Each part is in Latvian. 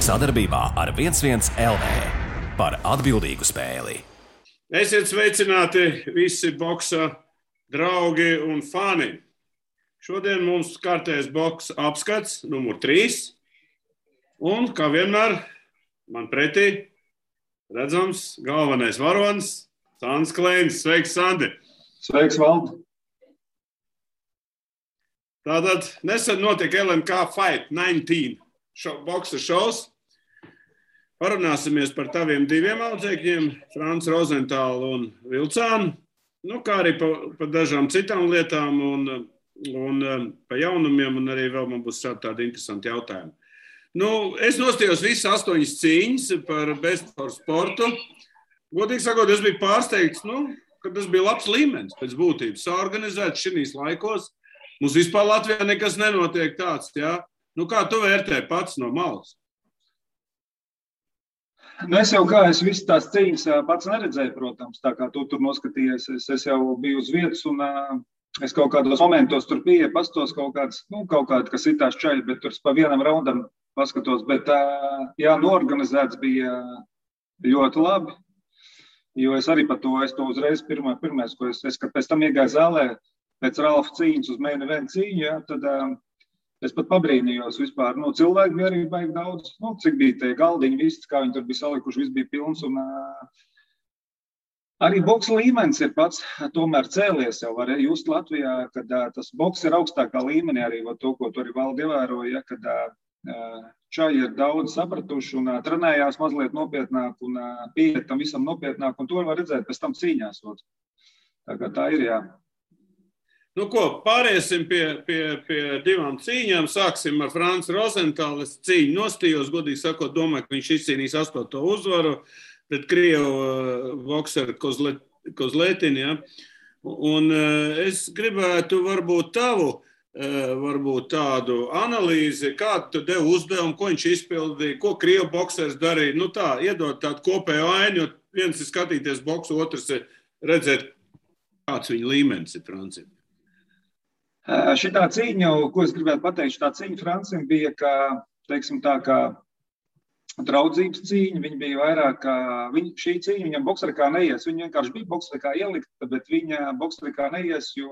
sadarbībā ar 11 LV par atbildīgu spēli. Esiet sveicināti visi boksa draugi un fani. Šodien mums kārtējs boksa apskats numur 3. Un, kā vienmēr, man pretī redzams galvenais varonis Sandis Kleinis. Sveiks, Sandi! Sveiks, Valdi! Tātad nesen notika LMK Fight 19 boksa šovs. Parunāsimies par taviem diviem audzēkņiem, Franci Rozentālu un Vilcānu, kā arī par dažām citām lietām un par jaunumiem, un arī vēl man būs tādi interesanti jautājumi. Es nostījos visas 8 cīņas par Best for sportu. Godīgi sakot, es biju pārsteigts, ka tas bija labs līmenis pēc būtības. Saorganizēts šinīs laikos. Mums vispār Latvijā nekas nenotiek tāds, jā? Kā tu vērtē pats no malas? Es visu tās cīņas pats neredzēju, protams, tā kā tu tur noskatījies. Es jau biju uz vietas un es kaut kādos momentos tur biju, pastos kaut kādi, kas itās čaļi, bet tur pa vienam raundam paskatos. Bet, noorganizēts bija ļoti labi, jo es arī par to, es to uzreiz pirmais, ko es kad pēc tam iegāju zālē, pēc Ralfa cīņas uz main event cīņu, tad es pat pabrīnījos vispār. Cilvēki bija arī baigi daudz, cik bija tie galdiņi, viss, kā viņi tur bija salikuši, viss bija pilns. Un arī boksa līmenis ir pats tomēr cēlies jau, var just Latvijā, kad tas boks ir augstākā līmenī arī, to, ko tu arī Valdi ievēroja, kad čaji ir daudz sapratuši un trenējās mazliet nopietnāk un pieiet tam visam nopietnāk, un to var redzēt pēc tam cīņās. Tā kā tā ir, jā. Pāriesim pie divām cīņām. Sāksim ar Franci Rozentālu. Es cīņu nostījos, godīgi sakot, domāju, ka viņš izcīnīs 8. uzvaru pret krievu bokseru Kozletini. Ja? Un es gribētu varbūt tādu analīzi, kādu tu devi uzdevumu, ko viņš izpildīja, ko krievu boksers darīja. Iedot tādu kopēju ainu, jo viens ir skatīties boksu, otrs ir redzēt, kāds viņa līmenis ir Francim. Šitā cīņa, ko es gribētu pateikt, šitā cīņa Francim bija, kā draudzības cīņa. Viņa bija vairāk, šī cīņa viņam bokserikā neies. Viņa vienkārši bija bokserikā ielikta, bet viņa bokserikā neies, jo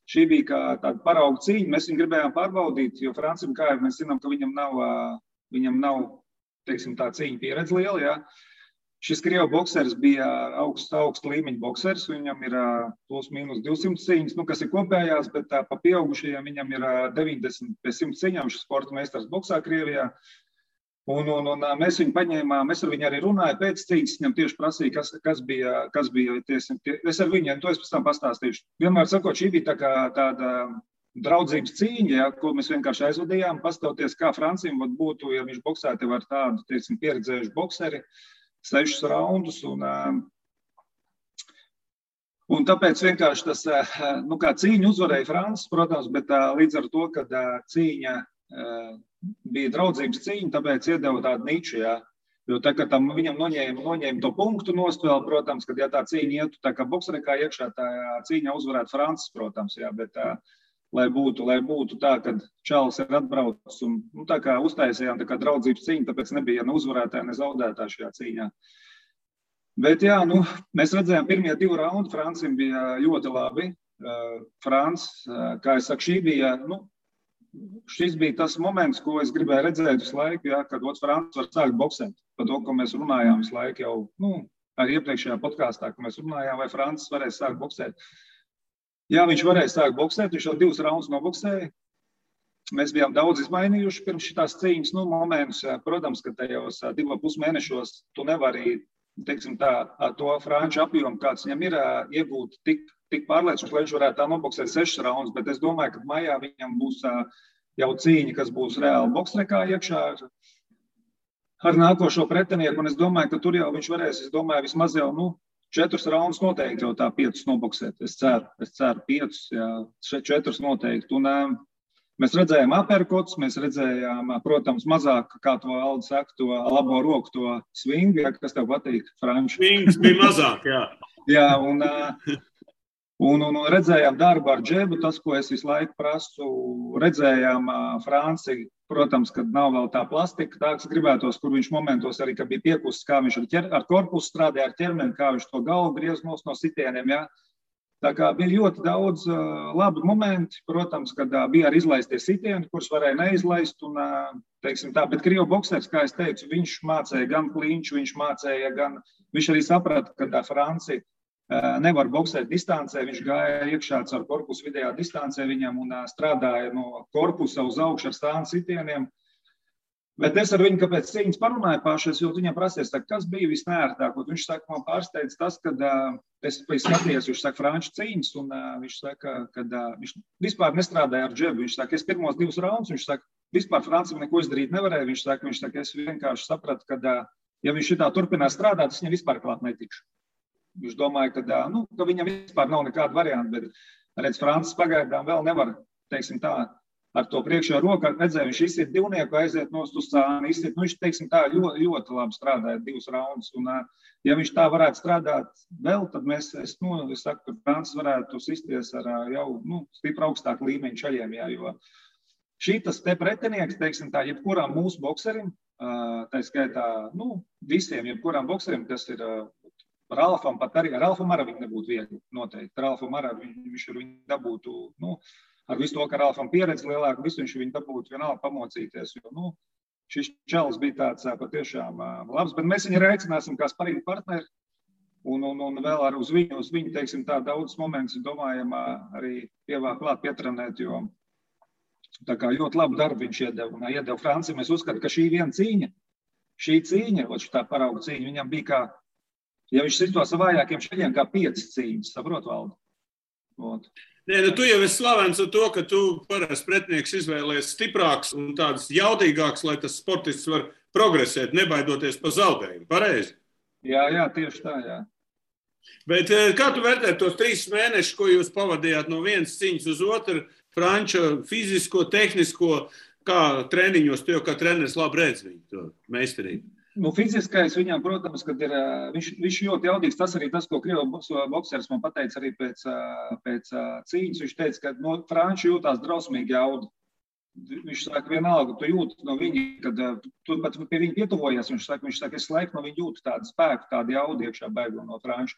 šī bija kā tāda parauga cīņa. Mēs viņu gribējām pārbaudīt, jo Francim, kā jau mēs zinām, ka viņam nav tā cīņa pieredze liela, jā. Šis krievu boksers bija augsta līmeņa boksers, viņam ir plus mīnus 200 cīņas, kas ir kopējās, bet pa pieaugušajiem viņam ir 90 pie 100 cīņām, šis sporta meistars boksā Krievijā. Un mēs viņu paņēmām, es ar viņu arī runāju pēc cīņas, viņam tieši prasīja, kas bija es ar viņu, to es pēc tam pastāstīšu. Vienmēr sakot, šī bija tāda draudzības cīņa, ja, ko mēs vienkārši aizvadījām, pastāvoties, kā Francim būtu, ja viņš boksēti var tādu, pieredzējuši bokseri, 6 raundus, un tāpēc vienkārši tas, kā cīņu uzvarēja Francis, protams, bet līdz ar to, kad cīņa bija draudzības cīņa, tāpēc iedeva tādu niču, jā. Jo tā, ka tam viņam noņēma to punktu nost vēl, protams, kad ja tā cīņa ietu, tā kā bokserikā iekšā, tā cīņa uzvarētu Francis, protams, jā, bet lai būtu tā, kad čalis ir atbraucis un tā kā uztaisījām tā kā draudzības cīņa, tāpēc nebija ne uzvarētāja, ne zaudētāja šajā cīņā. Bet jā, mēs redzējām pirmie 2 raundi, Francim bija ļoti labi. Francis, kā es saku, šis bija tas moments, ko es gribēju redzēt visu laiku, jā, kad Francis var sākt boksēt. Par to, ko mēs runājām visu laiku jau, arī iepriekšējā podkāstā, ko mēs runājām, vai Francis varēs sākt boksēt. Jā, viņš varēja sākt boksēt, viņš jau 2 raundus noboksēja. Mēs bijām daudz izmainījuši pirms šitās cīņas momentus. Protams, ka tajos 2,5 mēnešos tu nevari, to franču apjomu, kāds viņam ir, iegūt tik pārliecinoši, lai viņš varētu tā noboksēt 6 raundus, bet es domāju, ka maijā viņam būs jau cīņa, kas būs reāli boksrekā iekšā ar nākošo pretinieku, un es domāju, ka tur jau viņš varēs, vismaz jau, 4 raundus noteikti jau tā 5 noboksēt. Es ceru 5, jā, 4 noteikti. Un mēs redzējām aperkots, mēs redzējām, protams, mazāk, kā to Aldi saka, to labo roku, to swingu, ja, kas tev patīk, Franči. Swings bija mazāk, jā. Jā, Un redzējām darbu ar džebu, tas, ko es visu laiku prasu, redzējām Franci, protams, kad nav vēl tā plastika, tā, kas gribētos, kur viņš momentos arī, kad bija piekusts, kā viņš ar korpusu strādāja, ar ķermeni, kā viņš to galvu griez no sitieniem, jā. Tā kā bija ļoti daudz labu momenti, protams, kad bija arī izlaistie sitieni, kurus varēja neizlaist, un, teiksim tā, bet krievu boksers, kā es teicu, viņš mācēja gan klinču, viņš arī saprata, ka Franci nevar boksēt distancē, viņš gāja iekšā ar korpusu vidējā distancē viņam un strādāja no korpusa uz augšu ar stānu sitieniem. Bet es ar viņu, kāpēc cīņas parunāju pašas, jo viņam prasies, kas bija visnērtāk. Viņš saka, man pārsteidz tas, kad es skatījos, viņš saka, franču cīņas, un viņš saka, kad viņš vispār nestrādāja ar džebu. Viņš saka, es pirmos 2 raundus, viņš saka, vispār Francim neko izdarīt nevarēja. Viņš saka, es vienkārši sapratu, ka ja viņš šitā turpinās strādāt, es viņam vispār klāt netikšu. Viņš domāja, ka viņam vispār nav nekāda varianta, bet, redz, Francis pagaidām vēl nevar, teiksim tā, ar to priekšā roku, redzēja, viņš izsiet divnieku, aiziet nost uz cāni, izsiet, viņš, teiksim tā, ļoti labi strādāja 2 raundus, un ja viņš tā varētu strādāt vēl, tad es saku, ka Francis varētu sisties ar jau, stipri augstāku līmeņu šaļiem, jā, jo šitas te pretinieks, teiksim tā, jebkuram mūsu bokserim, tā skaitā, visiem, jebkuram bokserim, kas ir Ralfam, pat arī ar Ralfam arī viņa nebūtu viegli, noteikti. Ralfam arī viņš ar viņu dabūtu, ar visu to, ka Ralfam pieredze lielāka, visu viņš viņu dabūtu vienalga pamocīties, jo, šis čels bija tāds patiešām labs, bet mēs viņu rēcināsim kā sparīgi partneri, un vēl ar uz viņu, teiksim tā, daudz momentus, domājam, arī klāt pietrenēt, jo tā kā ļoti labu darbu viņš iedeva Franci. Mēs uzskatām, ka šī cīņa, tā parauga cīņa, viņam bija kā, ja viņš sito savājākiem šaļiem kā 5 cīņas, saprot, Valdi? Nē, tu jau esi slavens ar to, ka tu parasti pretinieks izvēlēs stiprāks un tāds jaudīgāks, lai tas sportists var progresēt, nebaidoties pa zaudējumu. Pareizi? Jā, tieši tā, jā. Bet kā tu vērtē tos 3 mēnešus, ko jūs pavadījāt no vienas cīņas uz otru, franča fizisko, tehnisko, kā treniņos, tu jau kā treneris labi redz viņu, to meistarību? Fiziskais viņam, protams, kad ir, viņš ļoti jaudīgs, tas arī tas, ko krievu bokseris man pateica arī pēc cīņas, viņš teica, ka franči jūtās drausmīgi jaudu. Viņš saka, vienalga, tu jūti no viņa, kad tu pat pie viņa pietuvojies, viņš saka, es laiku no viņa jūtu tādu spēku, tādu jaudu iekšā bēgu no franča.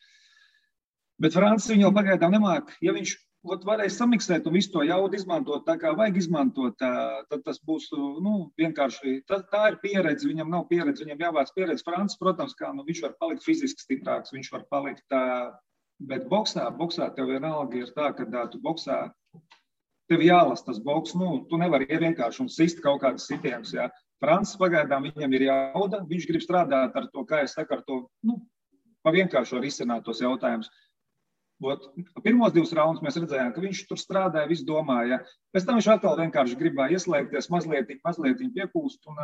Bet Francis viņu jau pagaidām nemāk, ja viņš varēs samiksēt un visu to jaudu izmantot tā, kā vajag izmantot, tad tas būs, vienkārši, tā ir pieredze, viņam nav pieredze, viņam jāvāc pieredze. Francis, protams, kā, viņš var palikt fiziski stiprāks, viņš var palikt, bet boksā tev vienalga ir tā, ka tu boksā, tev jālas tas boks, tu nevari vienkārši un sist kaut kādas sitienus, jā. Francis pagaidām viņam ir jauda, viņš grib strādāt ar to, kā es saku, ar to, pa vienkārši var izsināt tos jautājumus. Pirmos 2 raundus mēs redzējām, ka viņš tur strādāja, visu domāja. Pēc tam viņš atkal vienkārši gribēja ieslēgties, mazliet piepūst. Un,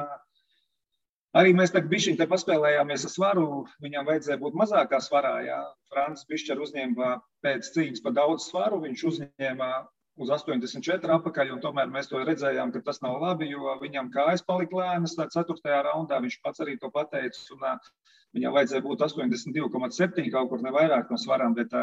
arī mēs tagad bišķiņ te paspēlējāmies ar svaru, viņam vajadzēja būt mazākā svarā. Jā. Francis bišķi uzņēma pēc cīņas pa daudz svaru, viņš uzņēma uz 84 apakaļ, un tomēr mēs to redzējām, ka tas nav labi, jo viņam kājas palika lēnas, 4. raundā viņš pats arī to pateica, un viņam vajadzēja būt 82,7 kaut kur nevairāk no svarām, bet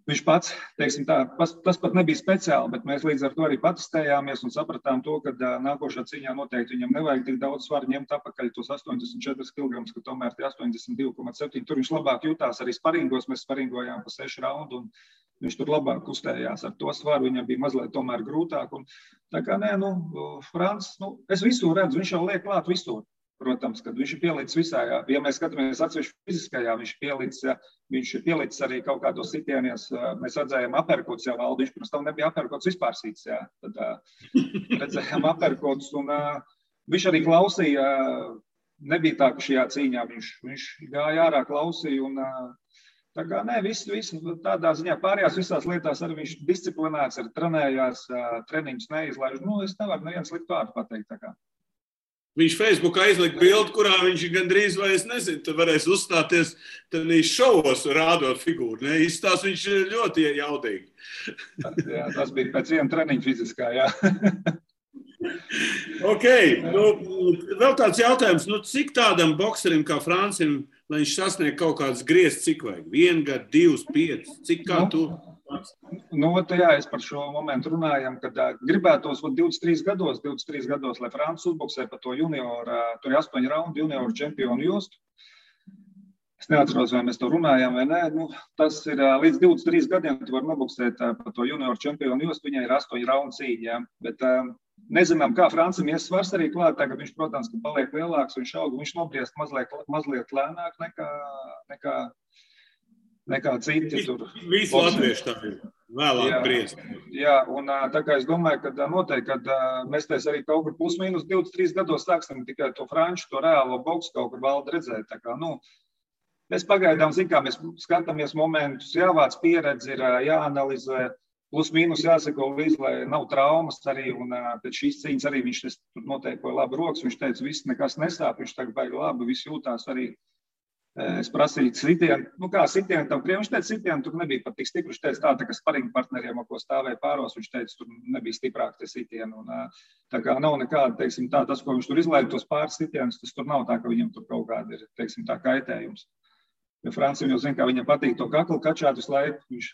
viņš pats, teiksim tā, tas pat nebija speciāli, bet mēs līdz ar to arī patestējāmies un sapratām to, ka nākošā cīņā noteikti viņam nevajag tik daudz svaru ņemt apakaļ tos 84 kg, ka tomēr tie 82,7. Tur viņš labāk jutās arī sparingos, mēs sparingojām pa 6 raundu un viņš tur labāk kustējās ar to svaru, viņam bija mazliet tomēr grūtāk. Un, tā kā nē, Francis, es visur redzu, viņš jau liek klāt visur. Protams, kad viņš ir pielicis visā, ja mēs skatāmies atsevišķi fiziskajā, viņš ir pielicis arī kaut kādos sitienies, mēs redzējām aperkots jau Valdi, viņš pirms tam nebija aperkots vispār sīts, jā. Tad redzējām aperkots un viņš arī klausīja, nebija tā, ka šajā cīņā viņš gāja ārā, klausīja un tā kā nē, visu tādā ziņā pārējās visās lietās arī viņš disciplinēts, arī trenējās, treniņus neizlaiž, es nevaru neviens likt vārdu pateikt tā kā. Viņš Facebookā izlika bildi, kurā viņš gandrīz vai es nezinu, tad varēs uzstāties tādīs šovos rādot figūru. Ne? Izstās viņš ļoti jaudīgi. Jā, tas bija pēc viena treniņa fiziskā, jā. Ok, vēl tāds jautājums, cik tādam bokserim kā Francim lai viņš sasniegtu kaut kādas grieztas, cik vajag? 1 gadu, 2, 5, cik kā tu? Jā, es par šo momentu runājam, kad gribētos 23 gados, lai Francis uzboksē pa to junioru, tur ir 8 raundu junioru čempionu jostu. Es neatceros, vai mēs to runājām vai nē. Tas ir līdz 23 gadiem, tu var noboksēt pa to junioru čempionu jostu, viņai ir 8 raundu cīņa, bet nezinām, kā Francim ies svars arī klāt, tagad viņš, protams, ka paliek lielāks, viņš aug, viņš nobriest mazliet lēnāk nekā citi tur. Visi latvieši tā ir vēlāk briest. Jā, un tā kā es domāju, ka noteikti, kad mēs arī kaut kur plus-mínus 23 gados sāksim tikai to franču, to reālo boksu kaut kur valda redzēt. Tā kā, mēs pagaidām, mēs skatāmies momentus, jāvāc pieredzi, ir jāanalizē, plus-mínus jāsako līdz, lai nav traumas arī, un pēc šīs cīņas arī viņš noteikti labi rokas, viņš teica, viss nekas nesāp, viņš tagad baigi labi, viss jūtās arī. Es prasīju sitienu, kā sitienu tam kriem, viņš teica, sitienu tur nebija pat tik stipri, viņš teica tā kā sparinga partneriem, ko stāvēja pāros, viņš teica, tur nebija stiprāk tie sitieni, un tā kā nav nekāda, teiksim tā, tas, ko viņš tur izlaida tos pāris sitienus, tas tur nav tā, ka viņam tur kaut kāda ir, teiksim tā, kaitējums. Jo Francim jau zina, kā viņam patīk to kaklu kačāt visu laiku, viņš...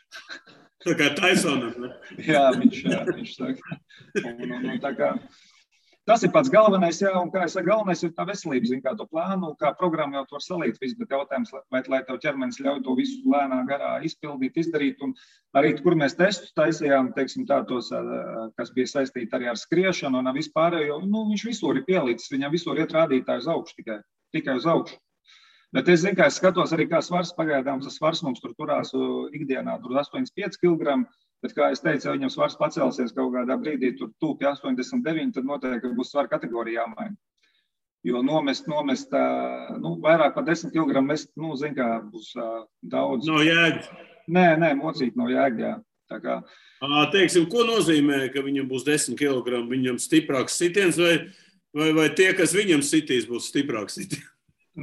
Tā kā Tysonam, ne? Jā, viņš saka, un tā kā... Tas ir pats galvenais, jā, un kā es saku, galvenais ir tā veselība, zin, kā to plānu, kā programmu jau to var salīt visu, bet jautājums, vai lai tev ķermenis ļauj to visu lēnā garā izpildīt, izdarīt, un arī, kur mēs testus taisījām, teiksim tā, tos, kas bija saistīti arī ar skriešanu un vispārējo, viņš visur ir pielīdzis, viņam visur iet rādītāji uz augšu, tikai uz augšu. Bet es zinu, kā es skatos arī, kā svars pagaidām, tas svars mums tur turās ikdienā, tur 85 kg, bet, kā es teicu, ja viņam svars pacelsies kaut kādā brīdī, tur tūpi 89, tad noteikti būs svara kategorija jāmaina. Jo nomest, vairāk par 10 kg mest, zin kā, būs daudz. No jēgas? Nē, mocīt no jēgas, jā. Tā kā... Teiksim, ko nozīmē, ka viņam būs 10 kg, viņam stiprāks sitiens, vai tie, kas viņam sitīs, būs stiprāks sitiens?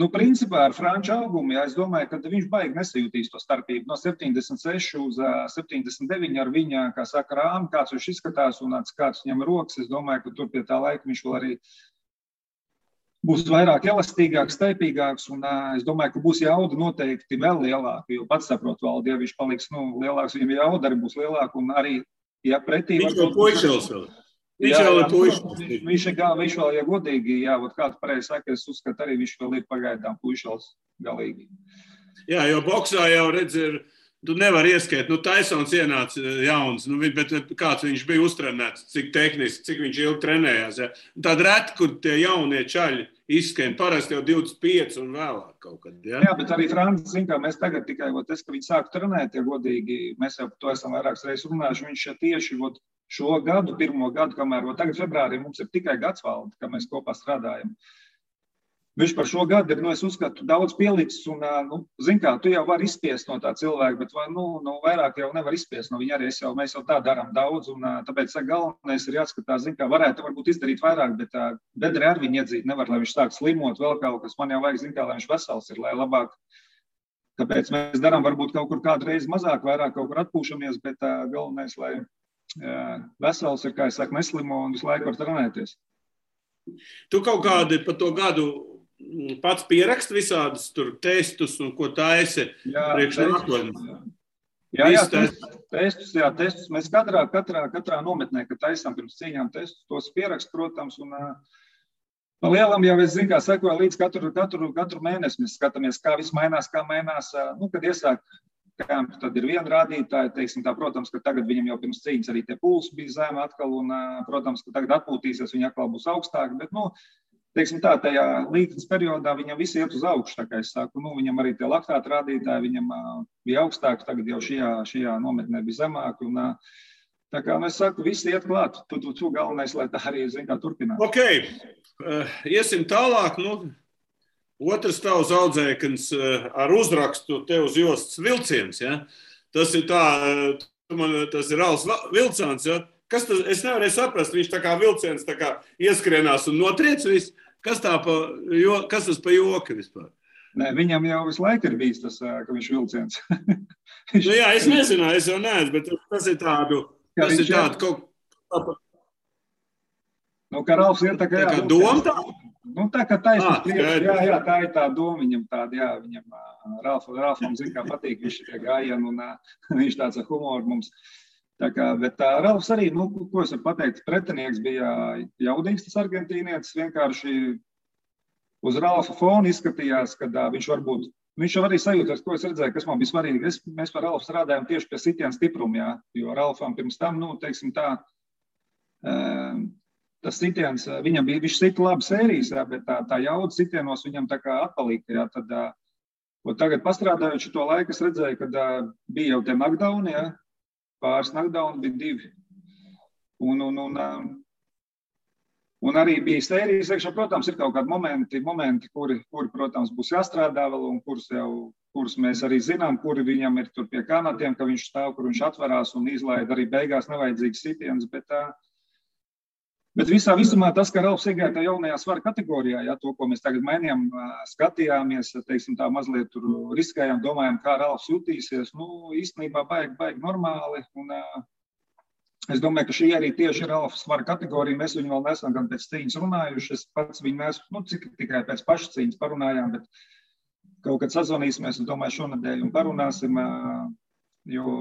Principā ar franču augumu, es domāju, ka viņš baigi nesajūtīs to starpību. No 76 uz 79 ar viņa, kā saka, rāmi, kāds viņš izskatās un kāds viņam rokas. Es domāju, ka tur pie tā laika viņš vēl arī būs vairāk elastīgāks, staipīgāks, un es domāju, ka būs jauda noteikti vēl lielāka, jo pats saprot, Valdi, ja viņš paliks lielāks, viņam jauda arī būs lielāka, un arī, ja pretī... Viņš jau puišels vēl. Viņš vēl, ja godīgi, kāds pareizi saka, es uzskatu arī, viņš vēl ir pagaidām puišels galīgi. Jā, jo boksā jau redz, tu nevar ieskait, Tysons ienāca jauns, bet kāds viņš bija uztrenēts, cik tehniski, cik viņš ilgi trenējās. Ja? Tāda reti, kur tie jaunie čaļi izskain, parasti jau 25 un vēlāk kaut kad. Ja? Jā, bet arī Francis, zin kā, mēs tagad tikai, ka viņi sāk trenēt, ja godīgi, mēs jau par to esam vairākas reizes runājuši, viņš tieši, šo gadu, pirmo gadu, kamēr tagad februārī mums ir tikai gads Valdi, ka mēs kopā strādājam. Viņš par šo gadu ir, es uzskatu, daudz pielicis un, zin kā, tu jau vari izspiest no tā cilvēka, bet vairāk jau nevar izspiest no viņa arī, mēs jau tā darām daudz un tāpēc galvenais ir jāskatās, zin kā, varētu varbūt izdarīt vairāk, bet bedri ar viņu iedzīt nevar, lai viņš sāk slimot vēl kaut kas, man jau vajag, zin kā, lai viņš vesels ir, lai labāk, kāpēc mēs darām varbūt kaut kur kādu reizi mazāk, vairāk kaut kur atpūšamies, bet galvenais, lai vesels ir, kā es saku, neslimo un visu laiku var trenēties. Tu kaut kādi pa to gadu pats pierakst visādus tur testus un ko taisi priekš nākotnes? Testus. Mēs katrā nometnē, kad taisām pirms cīņām testus, tos pierakst, protams, un pa lielam jau es zinu, kā sekoju līdz katru mēnesi. Mēs skatāmies, kā viss mainās, kad iesāk kampi, tad ir viena rādītāja, teiksim tā, protams, ka tagad viņam jau pirms cīņas arī tie pulsi bija zemi atkal, un, protams, ka tagad atpūtīsies, viņi atkal būs augstāki, bet, teiksim tā, tajā līknes periodā viņam visi iet uz augšu, tā kā es saku, viņam arī tie laktāta rādītāji, viņam bija augstāki, tagad jau šajā nometnē bija zemāki, un tā kā, es saku, visi iet klāt, tu galvenais, lai tā arī, zin kā, turpināt. Ok, iesim tālāk, Otrs tavs audzēknis ar uzrakstu tev uz jostas Vilciens, ja? Tas ir tā, tas ir Ralfs Vilcāns, ja? Kas tas, es nevarēju saprast, viņš tā kā Vilciens tā kā ieskrienās un notriec visu, kas tas pa joku vispār? Nē, viņam jau visu laiku ir bijis tas, ka viņš Vilciens. Jā, es nezināju, es jau neesmu, bet tas ir tādu kaut... Ka Ralfs ir tā kā doma tā? Nu, tā kā taisnība priekš, jā, tā ir tā doma viņam tāda, jā, viņam Ralfam zin, kā patīk viņš tie gājieni un viņš tāds ar humoru mums. Tā kā, bet Ralfs arī, nu, ko es varu pateikt, pretinieks bija jaudīgs tas argentīnietis, vienkārši uz Ralfa fona izskatījās, kad viņš varbūt, viņš jau arī sajūtas, ko es redzēju, kas man bija svarīgi. Mēs par Ralfu strādājam tieši pie sitiena stipruma, jā, jo Ralfam pirms tam, nu, teiksim tā, tas sitiens, viņam bija, viņš sita labi sērijas, jā, bet tā jauda sitienos viņam tā kā atpalika, jā, tad, tagad pastrādājot šo laiku, es redzēju, kad bija jau tie knockdowni, jā, pāris knockdowni bija 2. Un arī bija sērijas, iekšā, protams, ir kaut kādi momenti, kuri, protams, būs jāstrādā vēl un kurus mēs arī zinām, kuri viņam ir tur pie kanatiem, ka viņš stāv, kur viņš atverās un izlaid arī beigās nevajadzīgs sitiens, bet visā visumā tas, ka Ralfs iegāja tā jaunajā svara kategorijā, ja, to, ko mēs tagad mainījām, skatījāmies, teiksim tā mazliet tur riskējām, domājām, kā Ralfs jutīsies, nu, īstenībā baigi normāli, un es domāju, ka šī arī tieši ir Ralfa svara kategorija, mēs viņu vēl nesam gan pēc cīņas runājuši, es pats viņu neesmu, nu, tikai pēc pašas cīņas parunājām, bet kaut kad sazvanīsimies, es domāju, šonadēļ un parunāsim, jo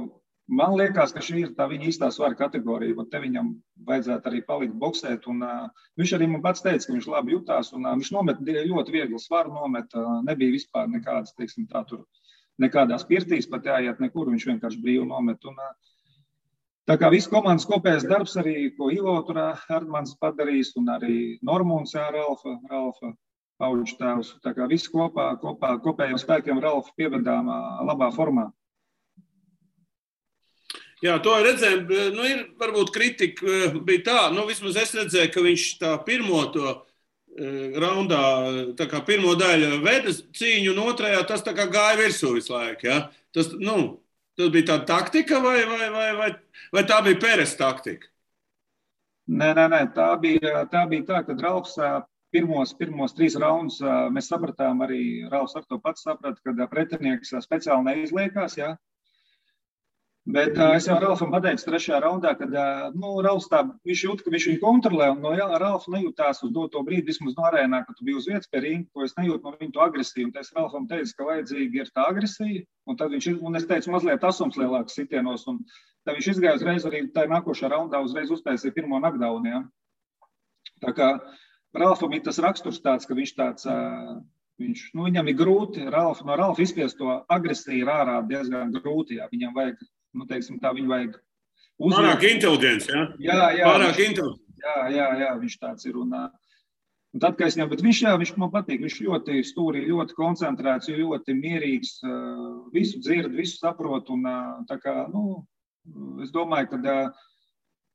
man liekas, ka šī ir tā viņa īstā svara kategorija, un te viņam vajadzētu arī palikt boksēt, un viņš arī man pats teica, ka viņš labi jutās, un viņš nomet ļoti viegli svaru nomet, nebija vispār nekādas, teiksim tā, tur nekādās pirtīs pat jāiet nekur, viņš vienkārši brīvi nomet, un tā kā viss komandas kopējais darbs arī, ko Ivo tur Erdmans padarījis, un arī Normunds, jā, Ralfa pauģu tēvs, tā kā viss kopējiem spēkiem Ralfa pievedām labā formā. Jā, to redzējām, nu ir varbūt kritika bija tā, nu vismaz es redzēju, ka viņš tā pirmo to raundā, tā kā pirmo daļu veda cīņu un otrajā tas tā kā gāja virsū visu laiku, ja? Tas bija tāda taktika vai tā bija Peres taktika? Nē, tā bija tā, kad Ralfs pirmos 3 raundus mēs sapratām arī, Ralfs ar to pats saprata, kad pretinieks speciāli neizliekās, jā. Bet es jau Ralfam pateicu 3. raundā, kad Ralfs viņš jūt, ka viņš viņu kontrolē, un no Ralfa nejūtās uz doto brīdi, vismaz no arēnā, kad tu biji uz vietas pie ringa, ko es nejūtu no viņu to agresiju, un es Ralfam teicu, ka vajadzīgi ir tā agresija, un tad un es teicu mazliet asums lielāks sitienos, un tad viņš izgāja uzreiz arī tā nākošā raundā uzreiz uztaisīja pirmo knockdownu, ja. Tā kā Ralfam ir tas raksturs tāds, ka viņš tāds, viņam ir grūti, no Ralfa izspiest to agresiju ir ārā diezgan grūti, ja viņam vajag, teiksim tā, viņu vajag uzliekt. Pārāk inteliģents, ja? Jā. Pārāk inteliģents. Jā, viņš tāds ir. Un tad, kad es viņam, bet viņš man patīk, viņš ļoti stūrī, ļoti koncentrēts, ļoti mierīgs, visu dzird, visu saprot, un tā kā, es domāju, ka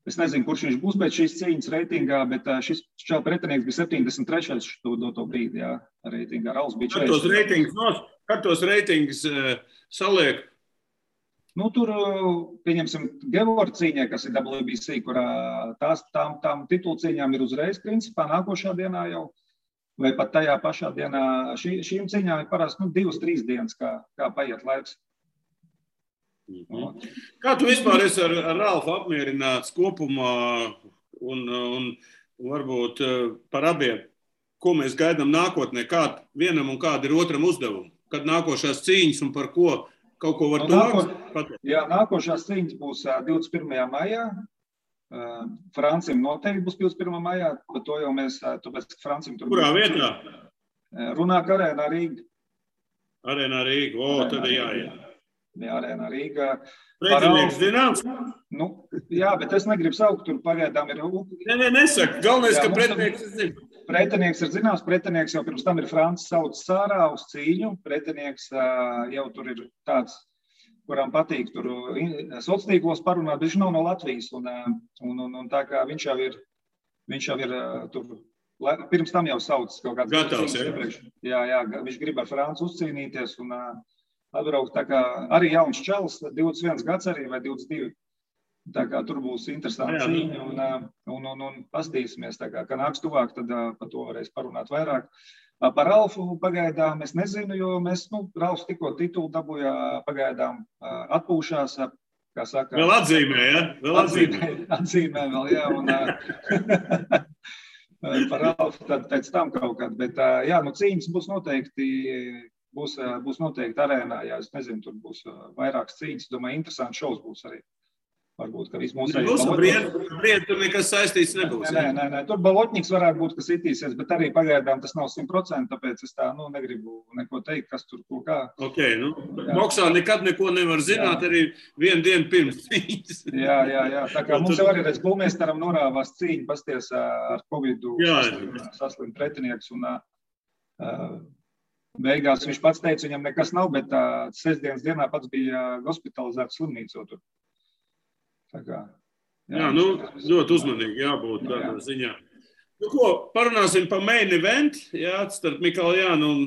es nezinu, kurš viņš būs pēc šīs cīņas reitingā, bet šis pretinieks bija 73. to brīdi, jā, reitingā. Ralfs bija 40. Kad tos reitingus saliek? Tur, pieņemsim, Gevora cīņai, kas ir WBC, kurā tām titulu cīņām ir uzreiz, principā, nākošā dienā jau, vai pat tajā pašā dienā. Šīm cīņām ir parasti 2-3 dienas, kā paiet laiks. Kā tu vispār esi ar Ralfu apmierināts kopumā un varbūt par abiem, ko mēs gaidām nākotnē, kāda vienam un kāda ir otram uzdevumi? Kad nākošās cīņas un par ko? Kaut ko var pateikt? Jā, nākošās cīņas būs 21. maijā. Francim noteikti būs 21. maijā, bet to jau mēs, tāpēc, ka Francim tur Kurā vietā? Runāk Arēnā Rīga. Arēnā Rīga, tad jāiet. Jā, Arēnā Rīga. Pretinieks zināms? Jā, bet es negribu saukt, tur pagaidām ir... Nesaka, galvenais, ka pretinieks ir zināms. Pretinieks ir zināms, pretinieks jau pirms tam ir Francis sauc Sārā uz cīņu. Pretinieks jau tur ir tāds, kuram patīk tur sociālos parunāt, bet viņš nav no Latvijas. Un tā kā viņš jau ir tur, pirms tam jau sauc kaut kāds... Gatavs, jā? Jā, viņš grib ar Franci uzcīnīties un atbraukt. Tā kā arī jauns čalis, 21 gads arī vai 22. Tā kā tur būs interesanti cīņa un pastīsimies, tā kā nāks tuvāk, tad par to varēs parunāt vairāk. Par Ralfu pagaidām es nezinu, jo Ralfs tikko titulu dabūja pagaidām atpūšās, kā saka. Vēl atzīmē, ja? Atzīmē vēl, jā. par Ralfu, tad pēc tam kaut kādu. Bet, jā, nu cīņas būs noteikti arēnā, jā, es nezinu, tur būs vairākas cīņas, domāju, interesants šovs būs arī. Varbūt, ka viss mūsu Briedi tur nekas saistīts nebūs. Nē, tur Balotņiks varētu būt, kas itīsies, bet arī pagaidām tas nav 100%, tāpēc es tā, negribu neko teikt, kas tur ko kā. Ok, boksā nekad neko nevar zināt, jā. Arī vienu dienu pirms cīņas. Jā, tā kā mums jau arī redz Bulmēstaram norāvās cīņa, pasties ar Covidu saslimt pretinieks un beigās viņš pats teica, viņam nekas nav, bet sestdienas dienā pats bija hospitalizēts slimnīcā tur. Jā, ļoti uzmanīgi jābūt tādā ziņā. Nu ko, parunāsim par main event, jā, starp Mikaljānu un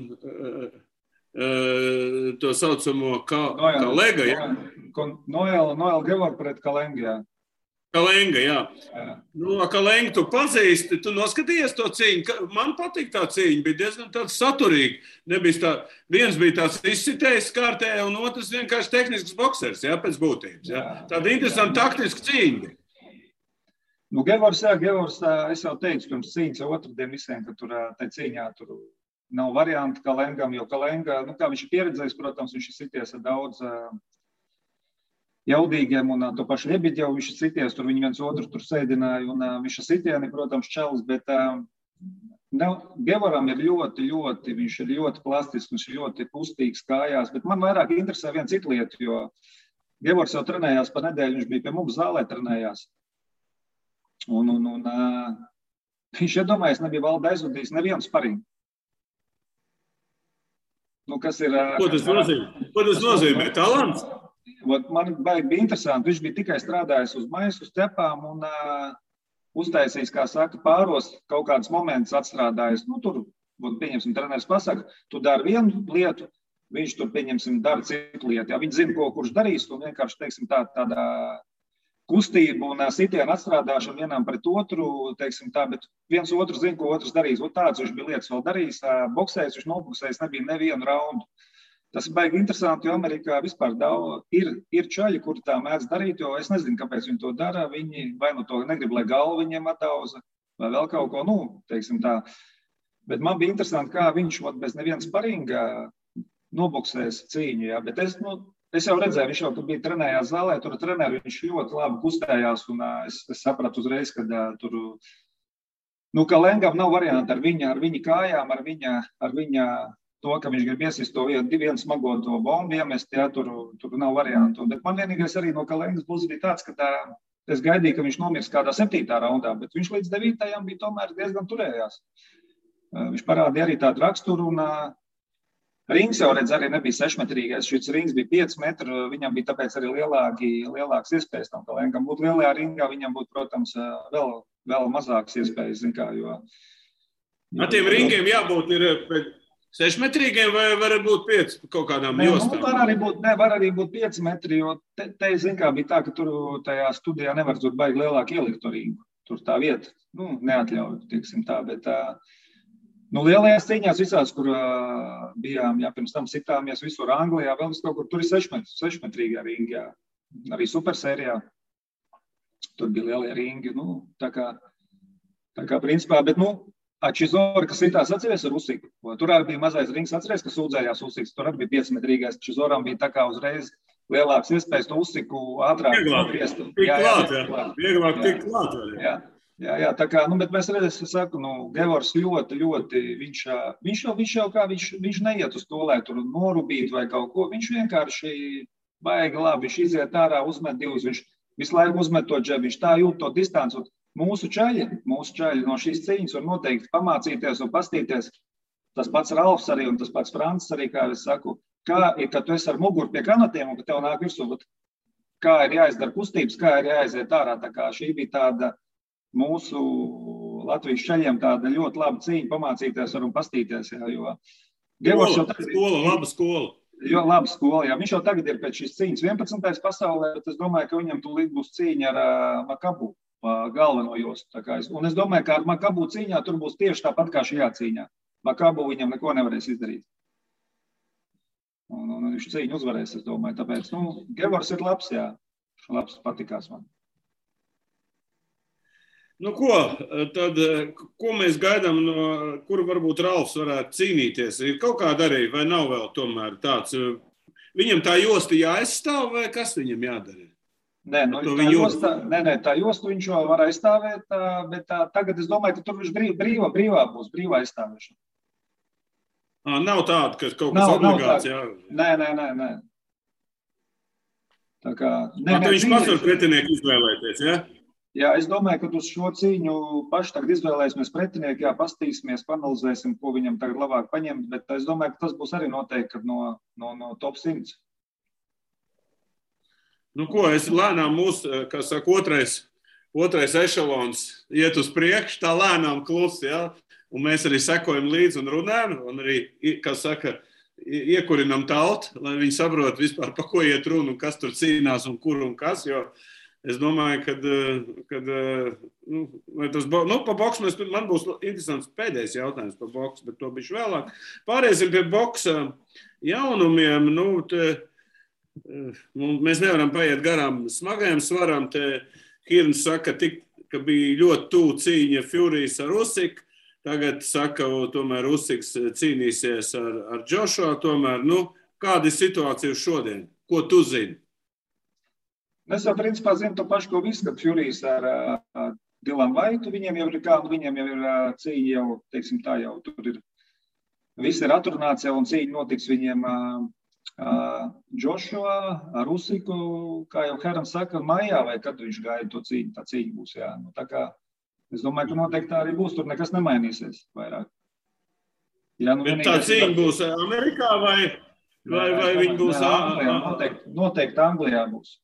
to saucamo Kalega, jā. Noel Gevor pret Kalengu, jā. Kalenga, jā. Kalengu tu pazīsti, tu noskatījies to cīņu. Man patīk tā cīņa, bija diezgan tāds saturīgi. Viens bija tāds izsitējis kārtējā, un otrs vienkārši tehnisks boksers, jā, pēc būtības. Jā. Tāda interesanta taktiska cīņa. Gevors, es jau teicu pirms cīņas otrdien visiem, ka tur tai cīņā tur nav varianti Kalengam, jo Kalenga, kā viņš ir pieredzējis, protams, viņš ir sities ar daudz jaudīgiem un to pašu Ļebiģevu viņš ir sities, tur viņi viens otru tur sēdināja un viņš ir sitieni, protams, čels, bet Gevoram ir ļoti, viņš ir ļoti plastisks, viņš ir ļoti kustīgs kājās, bet man vairāk interesē viena cita lieta, jo Gevors jau trenējās pa nedēļu, viņš bija pie mums zālē trenējās. Un viņš iedomājies, nebija valda aizvadījis nevienu sparingu. Kas ir... Ko tas nozīmē? Talants? Man bija interesanti, viņš bija tikai strādājis uz maisu, uz cepām un uztaisījis, kā saka, pāros kaut kādas momentus atstrādājis. Tur, pieņemsim, treneris pasaka, tu dari vienu lietu, viņš tur, pieņemsim, dara citu lietu. Jā, viņš zina, ko kurš darīs, un vienkārši, teiksim, tāda kustība un sitiena atstrādāšana vienam pret otru, teiksim tā, bet viens otru zina, ko otrs darīs. Tāds viņš bija lietas vēl darījis, boksējis, viņš noboksējis, nebija nevienu raundu. Tas ir baigi interesanti, jo Amerikā vispār ir čaļi, kuri tā mēdz darīt, jo es nezinu, kāpēc viņi to dara. Viņi vai to negrib, lai galva viņiem atauza, vai vēl kaut ko, teiksim tā. Bet man bija interesanti, kā viņš bez neviena sparinga noboksēs cīņu, jā. Bet es jau redzēju, viņš jau bija trenējās zālē, tur treneri, viņš ļoti labi kustējās, un es sapratu uzreiz, ka tur, Kalengam nav varianti ar viņa kājām, ar viņa to, ka viņš grib iesist to vienu smago to bombu iemest, jā, tur nav variantu. Bet man vienīgais arī no Kalengas puses bija tāds, ka es gaidīju, ka viņš nomirs kādā 7. raundā, bet viņš līdz 9. bija tomēr diezgan turējās. Viņš parādīja arī tādu raksturu, un rings jau redz arī nebija 6-metrīgais, šis rings bija 5 metru, viņam bija tāpēc arī lielāks iespējas tam Kalengam. Būt lielajā ringā, viņam būtu, protams, vēl mazāks iespējas, zin kā, jo... Tiem ringiem jābūt ir... 6-metrīgiem vai var būt 5 kaut kādām jostām? Var arī būt 5 metri, jo te zin kā, bija tā, ka tur tajā studijā nevar tur baigi lielāk ielikt to ringu. Tur tā vieta, neatļauj, tieksim tā, bet lielajās cīņās visās, kur bijām, jā, pirms tam sitāmies visur Anglijā, vēl vis kaut kur, tur ir 6-metrīgā ringi, jā. Arī supersērijā. Tur bija lielie ringi, tā kā principā, bet, Čizora, kas sitās atceries ar Usiku. Tur arī bija mazais rings, atceries, ka sūdzējās Usiks. Tur arī bija 5-metrīgais. Čizorām bija tā kā uzreiz lielāks iespējas to Usiku ātrāk. Vieglāk tikt klāt. Jā, tā kā, bet mēs redzēsim, es saku, Gevors ļoti, viņš neiet uz to, lai tur norubītu vai kaut ko. Viņš vienkārši baigi labi, viņš iziet ārā, uzmet divus, viņš visu laiku uzmet to džebu, viņš tā jūt to distanci. Mūsu čaļi no šīs cīņas var noteikti pamācīties un pastīties. Tas pats Ralfs arī un tas pats Francis arī, kā es saku, kā ir, kad tu esi ar muguru pie kanatiem un ka tev nāk virsū, kā ir jāizdara kustības, kā ir jāiziet ārā. Tā kā šī bija tāda mūsu Latvijas čaļiem tāda ļoti laba cīņa pamācīties un pastīties. Jā, jo Gevors jau tagad laba skola. Jo, laba skola, jā. Viņš jau tagad ir pēc šīs cīņas 11. pasaulē, bet es domāju, ka viņam tūlīt būs cīņa ar Makabu. Galveno jostu. Un es domāju, ka ar Makabu cīņā tur būs tieši tāpat kā šajā cīņā. Makabu viņam neko nevarēs izdarīt. Un viņš cīņu uzvarēs, es domāju. Tāpēc, Gevors ir labs, jā. Labs, patikās man. Nu, ko mēs gaidām, no kura varbūt Ralfs varētu cīnīties? Ir kaut kāda arī, vai nav vēl tomēr tāds? Viņam tā josta jāaizstāv, vai kas viņam jādara? Nē, tā josta viņš jau var aizstāvēt, bet tagad es domāju, ka tur viņš brīvā būs, brīvā aizstāvēšana. Nav tāda, ka kaut kas obligāts, jā? Nē. Tā kā... Viņš pats var pretinieku izvēlēties, jā? Jā, es domāju, ka uz šo cīņu paši tagad izvēlēsimies pretinieku, jā, pastīsimies, panalizēsim, ko viņam tagad labāk paņemt, bet es domāju, ka tas būs arī noteikti no top 100. Nu, ko, es lēnām kā saka, otrais ešalons iet uz priekšu, tā lēnām klusi, jā, un mēs arī sekojam līdzi un runājam, un arī, kā saka, iekurinam tautu, lai viņi saprot vispār, pa ko iet runa un kas tur cīnās un kur un kas, jo es domāju, kad pa boksu man būs interesants pēdējais jautājums par boksu, bet to bišķi vēlāk. Pāriesim pie boksa jaunumiem. Mēs nevaram paiet garām smagajam svaram. Hirns saka, ka bija ļoti tuvu cīņa Furijas ar Usyku. Tagad saka, tomēr Usyks cīnīsies ar Joshua. Tomēr, kāda ir situācija šodien? Ko tu zini? Es jau principā zinu to pašu, ko visu, kad Furijas ar Dilanu Vaitu, viņiem jau ir cīņa jau, teiksim tā, jau tur ir, viss ir atrunāts jau un cīņa notiks viņiem Joshua ar Usyku, kā jau Herans saka, maijā, vai kad viņš gaida to cīņu, tā cīņa būs, jā. Tā kā, es domāju, ka noteikti tā arī būs, tur nekas nemainīsies vairāk. Jā, bet tā cīņa būs Amerikā vai viņi būs Anglijā? Noteikti Anglijā būs.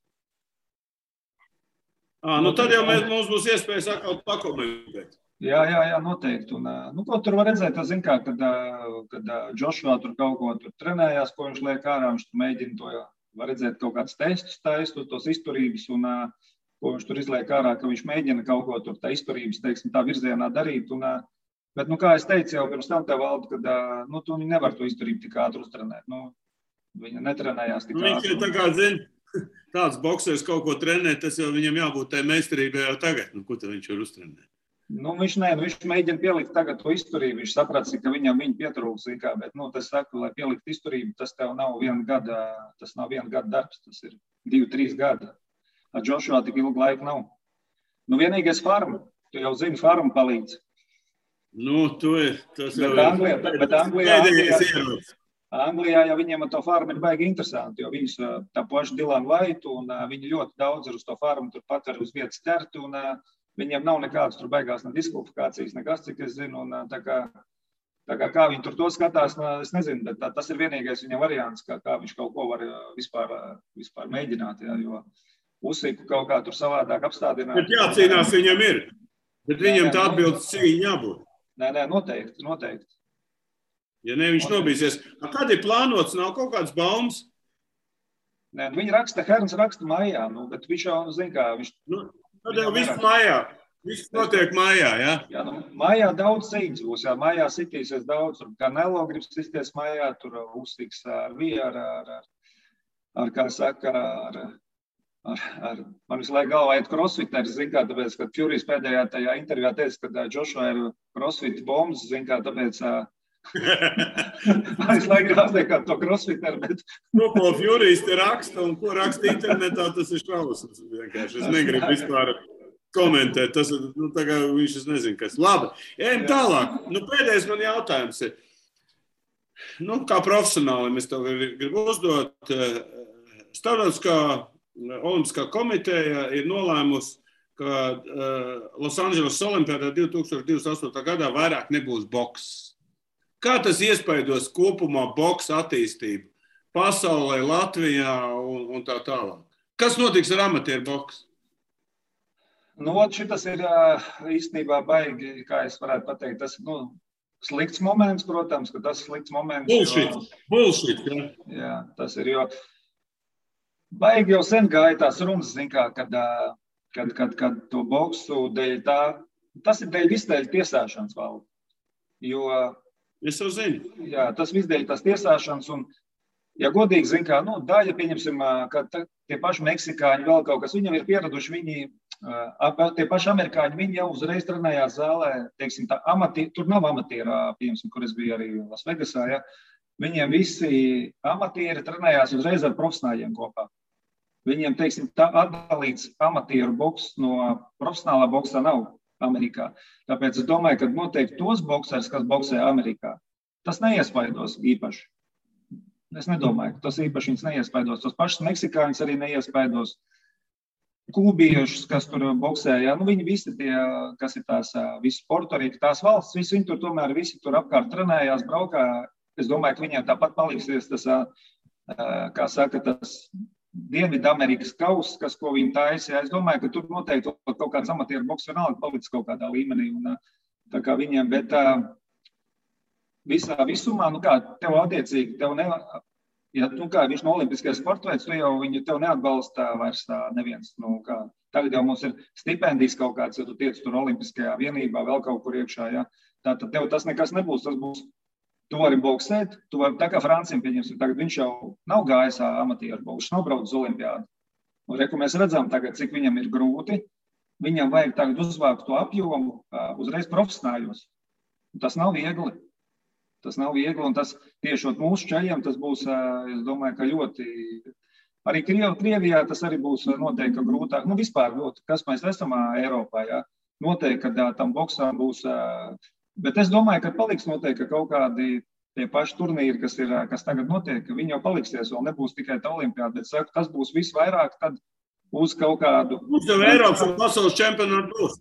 Tad jau mums būs iespējas atkal pakomentēt. Jā, noteikti. Un, ko tur var redzēt, kad Joshua tur kaut ko tur trenējās, ko viņš liek ārā, viņš tur mēģina to, var redzēt kaut kāds testus taistot, tos izturības, un ko viņš tur izliek ārā, ka viņš mēģina kaut ko tur tā izturības, teiksim, tā virzienā darīt. Bet, kā es teicu jau pirms tam tev, Valdu, kad tu nevar to izturību tik ātri uztrenēt. Viņa netrenējās tik ātri. Viņš tā kā zina. Tāds boksers kaut ko trenē, tas jau viņam jābūt tai meistarībai jau tagad. Ko tad viņš var uztrenēt? Viņš mēģina pielikt tagad to izturību. Viņš saprats, ka viņam pietrūks, bet, tas saka, lai pielikt izturību, tas tev nav viena gada darbs, tas ir 2-3 gadi. Ar Joshua tik ilgu laiku nav. Vienīgais farma, tu jau zini, farma palīdz. Tas jau bet Anglijā. Anglijā jau viņiem ar to farmu ir baigi interesanti, jo viņus tā paša Dilanu Vaitu un viņi ļoti daudz ir uz to farmu, turpat arī uz vietas ķerti un viņiem nav nekādas tur baigās ne diskvalifikācijas, nekas, cik es zinu, un tā kā viņi tur to skatās, es nezinu, bet tas ir vienīgais viņa variants, kā viņš kaut ko var vispār mēģināt, jā, jo Usyku kaut kā tur savādāk apstādināt. Bet jācīnās viņam ir, bet viņam tā atbildes cīņa jābūt. Nē, noteikti. Ja ne, viņš nobīsies. Kad ir plānots, nav kaut kāds baumas? Nē, Herns raksta maijā, bet viņš jau zina, kā viņš... Tad jau viss maijā. Viss notiek maijā, jā? Jā, maijā daudz cīņas būs, jā. Maijā sitīsies daudz. Tur Canelo grib sisties maijā, tur Usyks kā saka, man visu laiku galvā iet crossfiters, zin kā, tāpēc, kad Furijas pēdējā tajā intervijā teica, ka Joshua ir crossfit bombs, zin kā, tāpēc... Man visu laiku gribas teikt, kā to crossfiteru, bet... Ko Furijas te raksta un ko raksta internetā, tas ir šausmas. Es negribu vispār komentēt. Tas ir, tā kā viņš es nezinu, kas. Labi, ejam tālāk. Pēdējais man jautājums ir. Kā profesionāli es tev gribu uzdot. Starptautiskā olimpiskā komiteja ir nolēmusi, ka Los Angeles Olimpiādā 2028. gadā vairāk nebūs boks. Kā tas iespaidos kopumā boksa attīstību pasaulē, Latvijā un tā tālāk? Kas notiks ar amatieru boksu? Šitas ir īstenībā baigi, kā es varētu pateikt, tas ir slikts moments, protams, ka tas slikts moments. Bullshit, jā. Jā, tas ir, jo baigi jau sen gāja tās runas, kad to boksu dēļ tā, tas ir dēļ visdēļ tiesāšanas valda. Jo es jau zinu. Jā, tas visdēļ tās tiesāšanas un, ja godīgi, daļa, pieņemsim, ka tie paši meksikāņi vēl kaut kas, viņam ir pieraduši, viņi Tie paši amerikāņi, viņi jau uzreiz trenējās zālē, teiksim, tur nav amatierā, piemēram, kur es biju arī Las Vegasā, ja. Viņiem visi amatieri trenējās uzreiz ar profesionāļiem kopā. Viņiem, teiksim, tā atdalīts amatieru boks no profesionālā boksā nav Amerikā. Tāpēc es domāju, ka noteikti tos boksers, kas boksē Amerikā, tas neiespaidos īpaši. Es nedomāju, ka tas īpaši viņus neiespaidos. Tos pašus meksikāņus arī neiespaidos. Kūbiešus, kas tur boksē, ja, viņi visi tie, kas ir tās visi Portorika, tās valsts, visi viņi tur tomēr visi tur apkārt trenējās, braukā. Es domāju, ka viņiem tāpat paliksies tas, kā saka, tas Dienvidamerikas kauss, ko viņi taisa. Ja. Es domāju, ka tur noteikti kaut kāds amatieru boks vienalga palicis kaut kādā līmenī. Un, tā kā viņiem, bet visumā, tev attiecīgi, ja viņš no olimpiskajā sportveids, tev neatbalsta vairs neviens. Tagad jau mums ir stipendijas kaut kāds, ja tu tiec tur olimpiskajā vienībā, vēl kaut kur iekšā. Ja. Tātad tev tas nekas nebūs, tas būs, tu vari boksēt, tā kā Franciem pieņemsim, tagad viņš jau nav gājis amatieru boks, nav braucis uz olimpiādu. Un reku mēs redzam tagad, cik viņam ir grūti, viņam vajag tagad uzvākt to apjomu uzreiz profesionāļos. Tas nav viegli. Tas nav viegli, un tas tiešot mūsu čaļiem, tas būs, es domāju, ka ļoti, arī Krievijā tas arī būs noteikti grūtāk. Vispār ļoti, kas mēs esam Eiropā, jā. Noteikti, ka tam boksām būs, bet es domāju, ka paliks noteikti kaut kādi tie paši turnīri, kas tagad notiek, ka viņi jau paliksies, vēl nebūs tikai tā olimpiāda, bet saku, tas būs visvairāk tad uz kaut kādu. Mums jau Eiropas un pasaules čempionāti būs.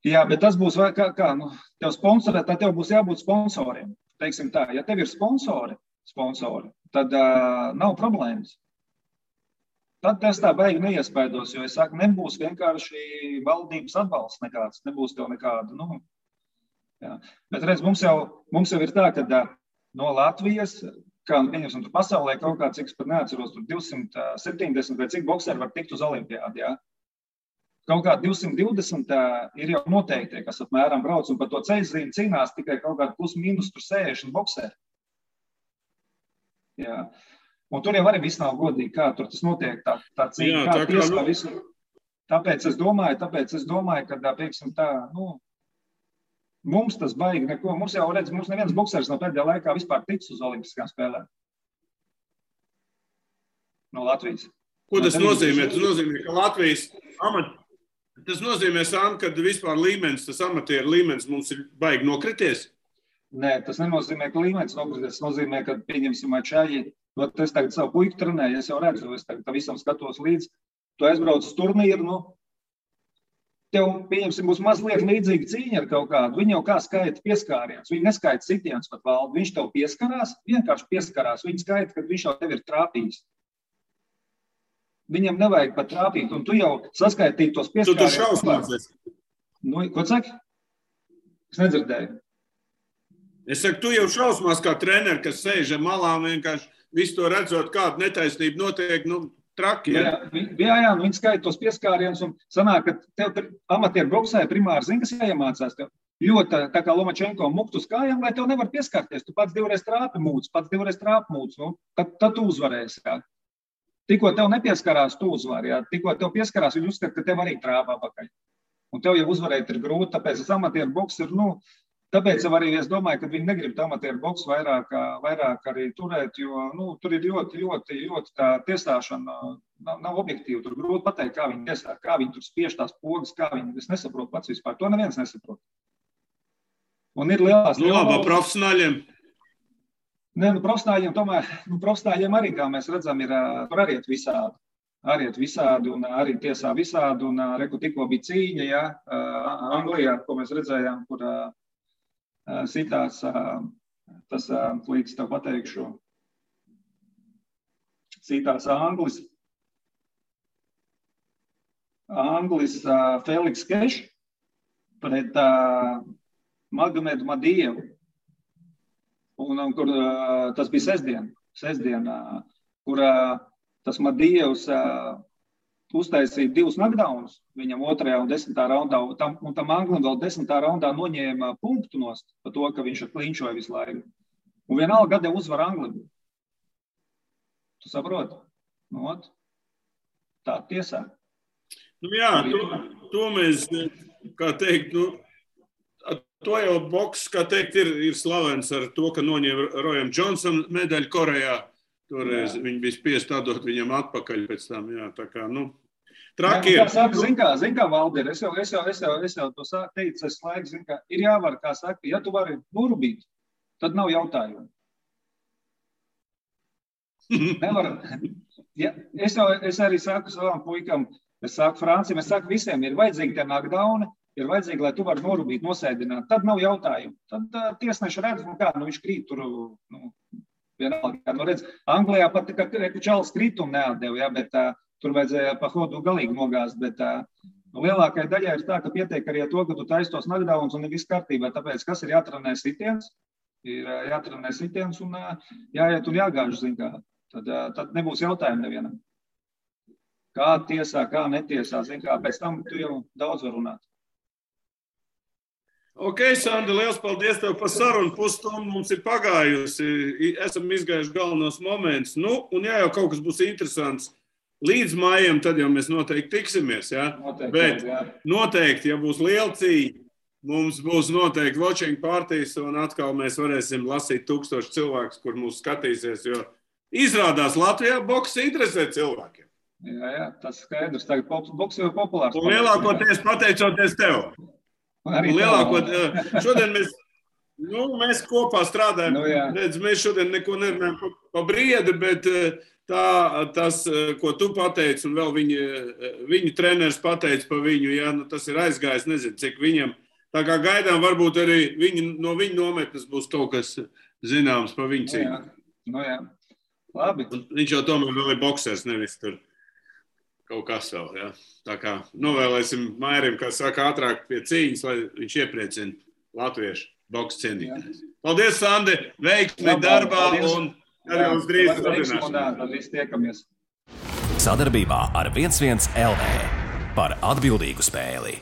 Jā, bet tas būs, tev sponsorē, tad tev būs jābūt sponsoriem. Teiksim tā, ja tev ir sponsori, tad nav problēmas. Tad tas tā baigi neiespaidos, jo es saku, nebūs vienkārši valdības atbalsts nekāds, nebūs tev nekādu, jā. Bet redz, mums jau ir tā, ka no Latvijas, kā pieņemsim tur pasaulē kaut kā, cik es pat neatceros, tur 270 vai cik bokseri var tikt uz olimpiādi, jā. Kaut kā 220 ir jau noteikti, kas apmēram brauc, un par to ceļzīmi cīnās tikai kaut kādu plus mīnus tur 60 bokseri. Jā. Un tur jau arī viss nav godīgi, kā tur tas notiek, tā cīņa, kā tiesā visu. Tāpēc es domāju, ka, pieksim tā, mums tas baigi neko. Mums jau redz, mums neviens boksers no pēdējā laikā vispār ticis uz olimpiskām spēlēm. No Latvijas. Ko tas nozīmē? Tas nozīmē, ka Latvijas tas nozīmē, ka vispār līmenis, tas amatieru līmenis mums ir baigi nokrities? Nē, tas nenozīmē, ka līmenis nokrities. Tas nozīmē, ka pieņemsim čaļi. Es tagad savu puiku trenēju, es jau redzu, es tagad visam skatos līdzi. Tu aizbrauc uz turnīru, tev, pieņemsim, būs mazliet līdzīga cīņa ar kaut kādu. Viņi jau kā skaita pieskāriens. Viņi neskaita sitiens pat valdu. Viņš tev pieskarās, vienkārši pieskarās. Viņi skaita, kad viņš jau tev ir trāpījis. Viņam nevajag pat trāpīt, un tu jau saskaitīji tos pieskārienus. Tu tur šausmāsies. Ko saki? Es nedzirdēju. Es saku, tu jau šausmās kā treneri, kas sēž ar malām, vienkārši visu to redzot, kāda netaisnība notiek, traki. Jā, viņi skaita tos pieskārienus, un sanāk, ka tev amatieru boksē primāri zini, kas jāiemācās tev. Ļoti tā kā Lomačenko mukt uz kājām, lai tev nevar pieskarties. Tu pats divreiz trāpi mūc, tad tu uzvarēsi, jā. Tikko tev nepieskarās, tu uzvari, jā. Tikko tev pieskarās, viņi uzskata, ka tev arī trāpā pakaļ. Un tev jau uzvarēt ir grūti, tāpēc tas amatieru boks ir, tāpēc jau arī es domāju, ka viņi negrib amatieru boksu vairāk arī turēt, jo, tur ir ļoti tā tiesāšana nav objektīva. Tur grūti pateikt, kā viņi tiesā, kā viņi tur spiež tās pogas, kā viņi, es nesaprotu pats vispār. To neviens nesaprot. Un ir lielās... Labi, profesionāļiem. Nē, profesionāļiem tomēr, profesionāļiem arī, kā mēs redzam, ir, tur arī iet visādi, un arī tiesā visādi, un reku tikko bija cīņa, jā, Anglijā, ko mēs redzējām, kur sitās, tas līdz tev pateikšu, sitās Anglis Feliks Keš pret Magomedu Madievu. Un kur tas bija sestdien, kur tas Madievs uztaisīja 2 knockdownus viņam 2. un 10. raundā, un tam Anglim vēl 10. raundā noņēma punktu nost par to, ka viņš klinčoja visu laiku. Un vienalga gadē uzvar Anglim. Tu saproti? Tā tiesā. Jā, to mēs, kā teikt, to jau boks, kā teikt, ir slavens ar to, ka noņēma Rojam Johnsonam medaļu Korejā. Toreiz viņi bija spiest atdot viņam atpakaļ pēc tam, jā, tā kā, traki ir. Zin kā, Valdir, es jau to teicu, es laiku, zin kā, ir jāvar, kā saka, ja tu vari norubīt, tad nav jautājumu. Nevar, ja, es arī saku savām puikam, es saku Franciem, es saku visiem, ir vajadzīgi tie knockdowni, ir vajadzīgi, lai tu vari norubīt, nosēdināt, tad nav jautājumu. Tad tiesneši redz, viņš krīt tur, vienalga, redz, Anglijā pat, ka Čalis kritumu neatdeva, ja, bet tur vajadzēja pa hodu galīgi nogāzt, bet lielākai daļai ir tā, ka pietiek arī to, ka tu taisi tos knockdowns un ir viss kārtībā, tāpēc, kas ir jātrenē sitiens, un jāiet un jāgāž, zin kā, tad nebūs jautājumu nevienam. Kā tiesā, kā netiesā, zin kā, pēc tam tu jau daudz var runāt. Ok, Sandi, liels paldies tev par sarunu. Pusstundu mums ir pagājusi. Esam izgājuši galvenos momentus. Un ja jau kaut kas būs interesants līdz maijam, tad jau mēs noteikti tiksimies. Ja? Noteikti, ja būs liela cīņa, mums būs noteikti watching partijas un atkal mēs varēsim lasīt 1000 cilvēkus, kur mūs skatīsies, jo izrādās Latvijā boks interesē cilvēkiem. Jā, tas skaidrs. Tagad boks jau populārs. Un lielākoties pateicoties tev. Šodien mēs kopā strādājam. Redz, mēs šodien neko nerunājam pa briedi, bet tas, ko tu pateici, un vēl viņa treneris pateica pa viņu, ja, tas ir aizgājis, nezinu, cik viņam. Tā kā gaidām, varbūt arī no viņa nometnes būs kaut kas zināms pa viņu cīņu. Jā. Labi. Un viņš jau tomēr vēl ir boksers, nevis tur kaut kas vēl, ja. Tā kā novēlēsim Mairim, kā saka, ātrāk pie cīņas, lai viņš iepriecina latviešu boksu cienītājus. Paldies, Sandi, veiksmi darbā un arī uz drīz sadarbības. Sadarbībā ar 11 LV par atbildīgu spēli.